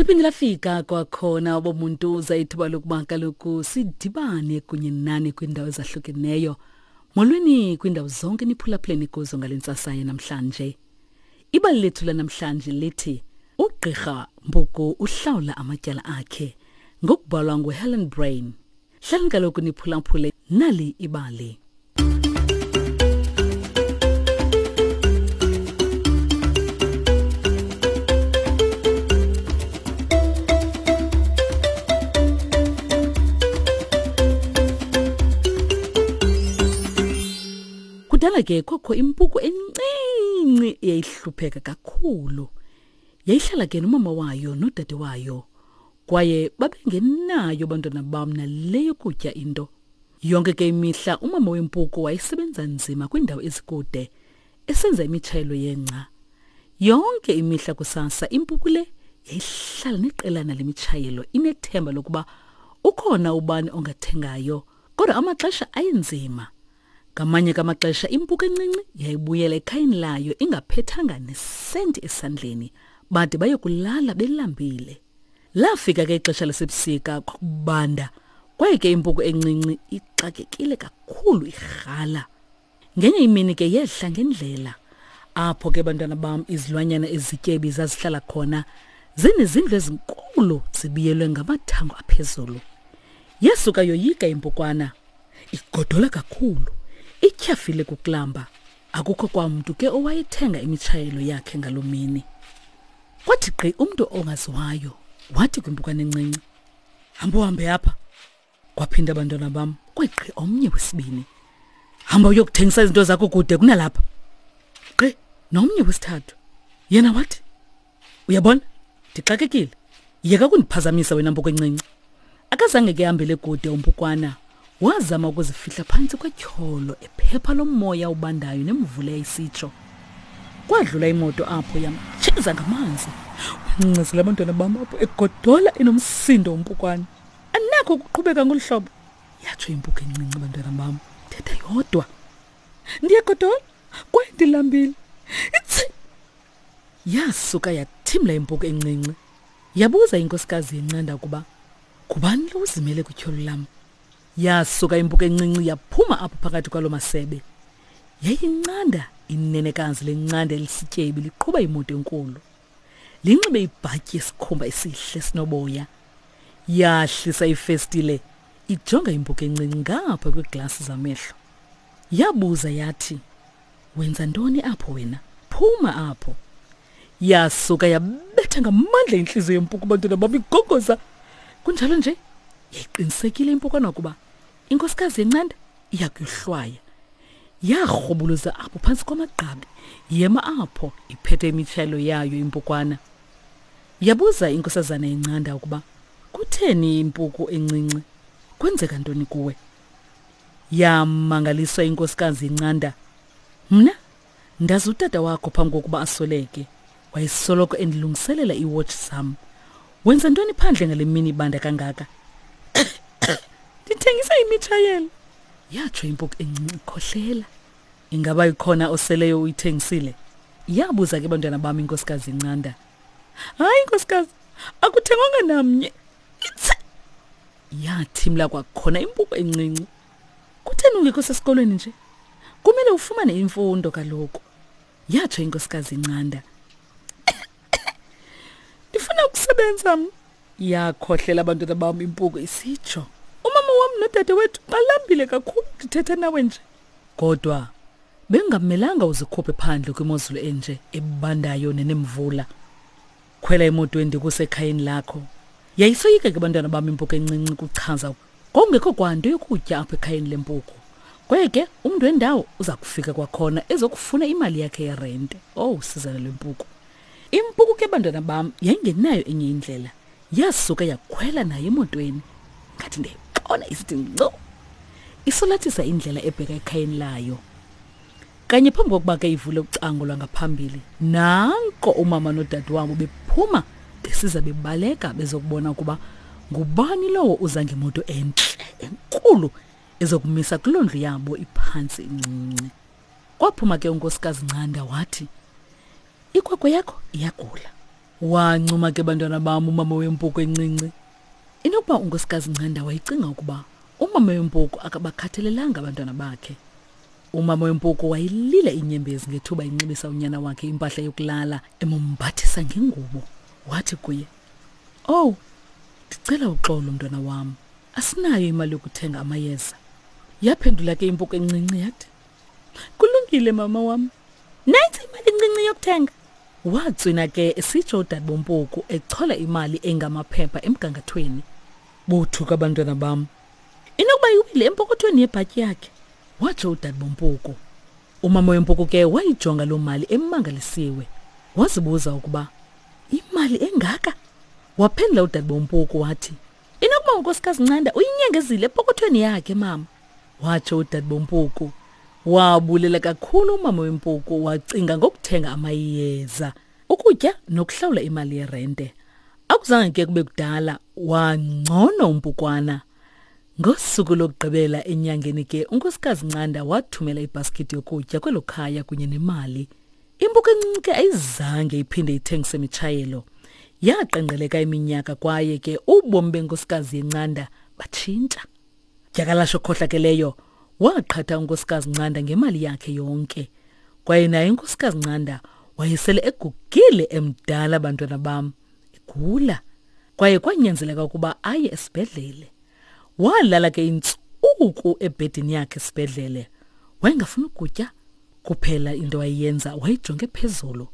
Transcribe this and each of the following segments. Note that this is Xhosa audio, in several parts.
Seliphinde lafika kwakhona obomuntu uza ithuba lokuba kaloku sidibane kunye nani kwiindawo ezahlukeneyo. Molweni kwiindawo zonke niphulaphuleni kuzo ngale ntsasa yanamhlanje. Ibali lethu lanamhlanje lithi uGqirha Mpuku uhlawula amatyala akhe ngokubhalwa nguHelen Brain. Hlalani kaloku niphulaphule nali ibali. Kudala ke kwakho impuku encinci eyayihlupheka kakhulu. Yayihlala ke nomama wayo nodade wayo. Kwaye babengenayo abantwana bam nale yokutya into. Yonke ke imihla umama wempuku wayesebenza nzima kwiindawo ezikude esenza imitshayelo yengca. Yonke imihla kusasa impuku le yayihlala neqelana lemitshayelo inethemba lokuba ukhona ubani ongathengayo, kodwa amaxesha ayenzima. Ngamanye kamaxesha impuku encinci yayibuyela ekhayeni layo ingaphethanga nesenti esandleni, bade bayokulala belambile. Lafika ke ixesha lasebusika kwakubanda, kwaye ke impuku encinci ixakekile kakhulu irhala. Ngenye imini ke yehla ngendlela apho ke bantwana bam izilwanyana ezityebi zazihlala khona zinezindlu ezinkulu zibiyelwe ngamathango aphezulu. Yasuka yoyika impukwana igodola kakhulu ityhafile kukulamba akukho kwamntu ke owayethenga imitshayelo yakhe ngaloo mini kwathi gqi umntu ongaziwayo wathi kwimpukane encinci hamba uhambe apha kwaphinda abantwana bam kwegqi omnye wesibini hamba uyokuthengisa izinto zakho kude kunalapha gqi nomnye wesithathu yena wathi uyabona ndixakekile yeka kundiphazamisa wena mpuku encinci akazange ke hambele kude umpukwana wazama ukuzifihla phantsi kwetyholo ephepha lomoya ubandayo nemvula yayisitsho kwadlula imoto apho yamtsheza ngamanzi wancazela abantwana bam apho egodola enomsindo umpukwana anakho ukuqhubeka ngolu hlobo yatsho impuku encinci abantwana bam thetha yodwa ndiyagodola kwaye ndilambile itsi Yasuka yathimla impuku encinci. Yabuza inkosikazi yencanda ukuba ngubani lo uzimele kwityholo lam. Yasuka impuku encinci yaphuma apho phakathi kwalo masebe. Yayincanda inenekazi lencanda elisityebi liqhuba imoto enkulu. Linxibe ibhatyi yesikhumba esihle sinoboya. Yahlisa ifestile ijonga impuku encinci ngapha kwiiglasi zamehlo. Yabuza yathi, Wenza ntoni apho wena? Phuma apho. Yasuka yabetha ngamandla intliziyo yempuku bantwana bam igogoza. Kunjalo nje yayiqinisekile impukwana ukuba inkosikazi yencanda iya kuyohlwaya. Yarhubuluza apho phantsi kwamagqabi, yema apho iphethe imitshayelo yayo impukwana. Yabuza inkosazana yencanda ukuba kutheni impuku encinci, kwenzeka ntoni kuwe? Yamangaliswa inkosikazi incanda. Mna ndazi utata wakho phambi kokuba asweleke. Wayesoloko endilungiselela iiwotshi zam. Wenza ntoni phandle ngale mini ibanda kangaka? Ndithengisa imitshayelo, yatsho impuku encinci ikhohlela. Ingaba ikhona oseleyo uyithengisile? Yabuza ke bantwana bam inkosikazi incanda. Hayi nkosikazi, akuthengwanga namnye. Itse! Yathimla kwakhona impuku encinci. Kutheni ungekho sesikolweni nje? Kumele ufumane imfundo kaloku. Yatsho inkosikazi incanda. Ndifuna ukusebenza mna. Yakhohlela abantwana bam impuku isitsho. Umama wam nodade wethu balambile kakhulu ndithetha nawe nje. Kodwa bengamelanga uzikhuphe phandle kwimozulu enje ebandayo nenemvula. Khwela emotweni ndikuse ekhayeni lakho. Yayisoyika ke bantwana bam impuku encinci kuchaza kwakungekho kwanto yokutya apho ekhayeni lempuku. Kwaye ke umntu wendawo uza kufika kwakhona ezokufuna imali yakhe yerente. Owu, sizana lwempuku. Impuku ke bantwana bam yayingenayo enye indlela. Yasuka yakhwela nayo emotweni. Ngathi ndiyayibona isithi nco. Isolathisa indlela ebheka ekhayeni layo. Kanye phambi kokuba ke ivule ucango lwangaphambili, nanko umama nodadewabo bephuma besiza bebaleka bezokubona ukuba ngubani lowo uza ngemoto entle enkulu ezokumisa kuloo ndlu yabo iphantsi incinci. Kwaphuma ke unkosikazi Ncanda wathi, Ikwekwe yakho iyagula. Wancuma ke bantwana bam umama wempuku encinci. Inokuba uNkosikazi Ncanda wayecinga ukuba umama wempuku akabakhathalelanga abantwana bakhe. Umama wempuku wayilila inyembezi ngethuba enxibisa unyana wakhe impahla yokulala emombathisa ngengubo. Wathi kuye, "Owu, ndicela uxolo mntwana wam. Asinayo imali yokuthenga amayeza." Yaphendula ke impuku encinci yathi, Kulungile mama wam. Nantsi imali encinci yokuthenga. Watswina ke esitsho udadebompuku echola imali engamaphepha emgangathweni. Bothuka abantwana bam. Inokuba iwile empokothweni yebhatyi yakhe, watsho udadebompuku. Umama wempuku ke wayijonga loo mali emangalisiwe. Wazibuza ukuba imali engaka? Waphendula udadebompuku wathi, Inokuba unkosikazi Ncanda uyinyengezile epokothweni yakhe mama. Watsho udadebompuku. Wabulela kakhulu umama wempuku wacinga ngokuthenga amayeza, ukutya nokuhlawula imali yerente. Akuzange ke kube kudala wangcono umpukwana. Ngosuku lokugqibela enyangeni ke unkosikazi Ncanda wathumela ibhaskithi yokutya kwelo khaya kunye nemali. Impuku encinci ke ayizange iphinde ithengise mitshayelo. Yaqengqeleka iminyaka kwaye ke ubomi benkosikazi yeNcanda batshintsha. Dyakalashe okhohlakeleyo waqhatha unkosikazi Ncanda ngemali yakhe yonke. Kwaye naye unkosikazi Ncanda wayesele egugile emdala bantwana bam, egula. Kwaye kwanyanzeleka ukuba aye esibhedlele. Walala ke intsuku ebhedini yakhe esibhedlele. Wayengafuni ukutya kuphela into ayenza wayijonge phezulu.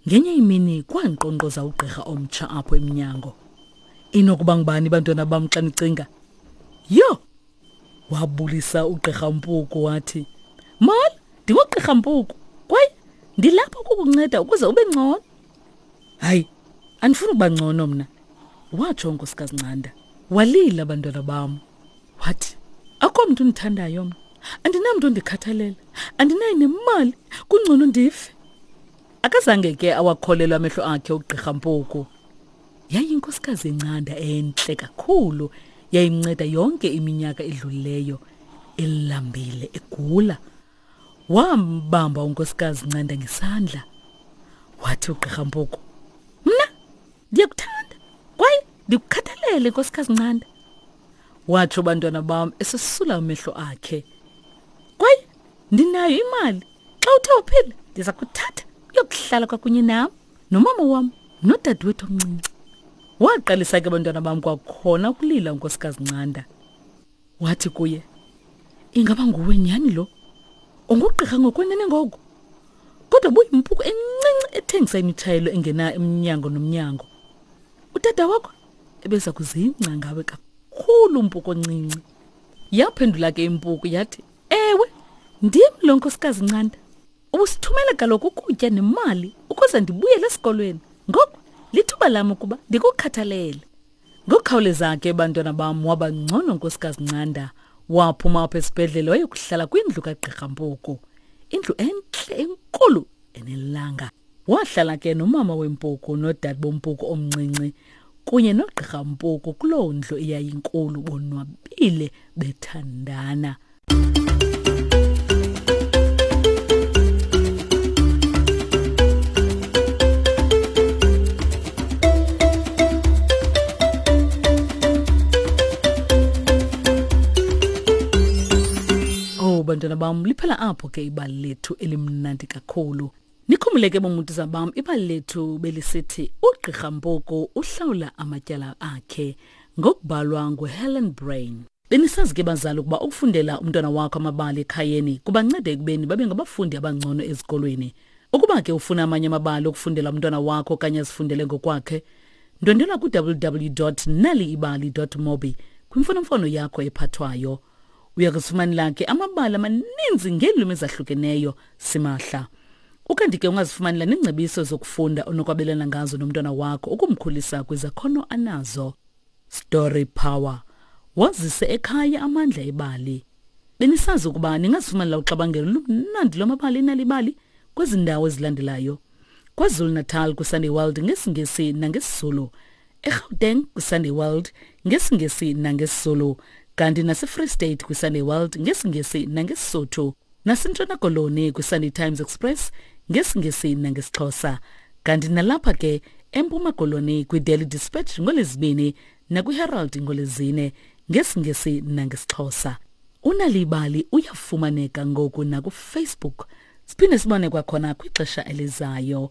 Ngenye imini kwankqonkqoza ugqirha omtsha apho emnyango. Inokuba ngubani bantwana bam xa nicinga? Yho! Wabulisa ugqirha Mpuku wathi, Molo, ndingugqirha Mpuku kwaye ndilapha ukukunceda ukuze ube ngcono. Hayi, andifuni ukuba ngcono mna, watsho unkosikazi Ncanda. Walila bantwana bam. Wathi, akho mntu undithandayo mna. Andinamntu ondikhathalela. Andinayo nemali. Kungcono ndife. Akazange ke awakholelwa amehlo akhe ugqirha Mpuku. Yayinkosikazi encanda entle kakhulu yayimnceda yonke iminyaka edlulileyo elambile egula. Wambamba unkosikazi Ncanda ngesandla. Wathi ugqirha Mpuku, "Mna ndiyakuthanda kwaye ndikukhathalele nkosikazi Ncanda." Watsho bantwana bam esesula amehlo akhe. Kwaye ndinayo imali. Xa uthe uphila ndiza kuthatha uyokuhlala kwakunye nam nomama wam nodadewethu omncinci. Waqalisa ke bantwana bam kwakhona ukulila unkosikazi Ncanda. Wathi kuye, Ingaba nguwe nyhani lo? Ungugqirha ngokwenene ngoku? Kodwa buyimpuku encinci ethengisa imitshayelo engena emnyango nomnyango. Utata wakho ebeza kuzingca ngawe kakhulu mpuku oncinci. Yaphendula ke impuku yathi, Ewe, ndim lo nkosikazi Ncanda. Ubusithumela kaloku ukutya nemali ukuze ndibuyele esikolweni. Ngoku lithuba lam ukuba ndikukhathalele. Ngokukhawuleza ke bantwana bam waba ngcono nkosikazi Ncanda. Waphuma apha esibhedlele wayokuhlala kwindlu kagqirha Mpuku. Indlu entle enkulu enelanga. Wahlala ke nomama wempuku nodade bompuku omncinci kunye nogqirha Mpuku kuloo ndlu eyayinkulu bonwabile bethandana. Oh bantwana bam liphela apho ke ibali lethu elimnandi kakhulu. Nikhumbule ke bomuntu bam ibali lethu belisithi uGqirha Mpuku uhlawula amatyala akhe ngokubhalwa nguHelen Brain. Benisazi ke bazali ukuba ukufundela umntwana wakho amabali ekhayeni kubanceda ekubeni babe ngabafundi abangcono ezikolweni. Ukuba ke ufuna amanye amabali okufundela umntwana wakho okanye azifundele ngokwakhe, ndwendwela ku-www.naliibali.mobi kwimfonomfono yakho ephathwayo. Uya kuzifumanela ke amabali amaninzi ngeelwimi ezahlukeneyo simahla. Ukanti ke ungazifumanela neengcebiso zokufunda onokwabelana ngazo nomntwana wakho ukumkhulisa kwizakhono anazo. Story Power. Wazise ekhaya amandla ebali. Benisazi ukuba ningazifumanela uxabangelo lumnandi lwamabali enalibali kwezi ndawo ezilandelayo. KwaZulu-Natal kwiSunday World ngesiNgesi nangesiZulu. eGauteng kwiSunday World ngesiNgesi nangesiZulu. Kanti naseFree State kwiSunday World ngesiNgesi nangeSisotho. NaseNtshona Koloni kwiSunday Times Express ngesiNgesi nangesiXhosa. Kanti nalapha ke eMpuma Koloni kwiDaily Dispatch ngoLwezibini nakwiHerald ngoLwezine ngesiNgesi nangesiXhosa. Unalibali uyafumaneka ngoku nakuFacebook. Siphinde sibone kwakhona kwixesha elizayo.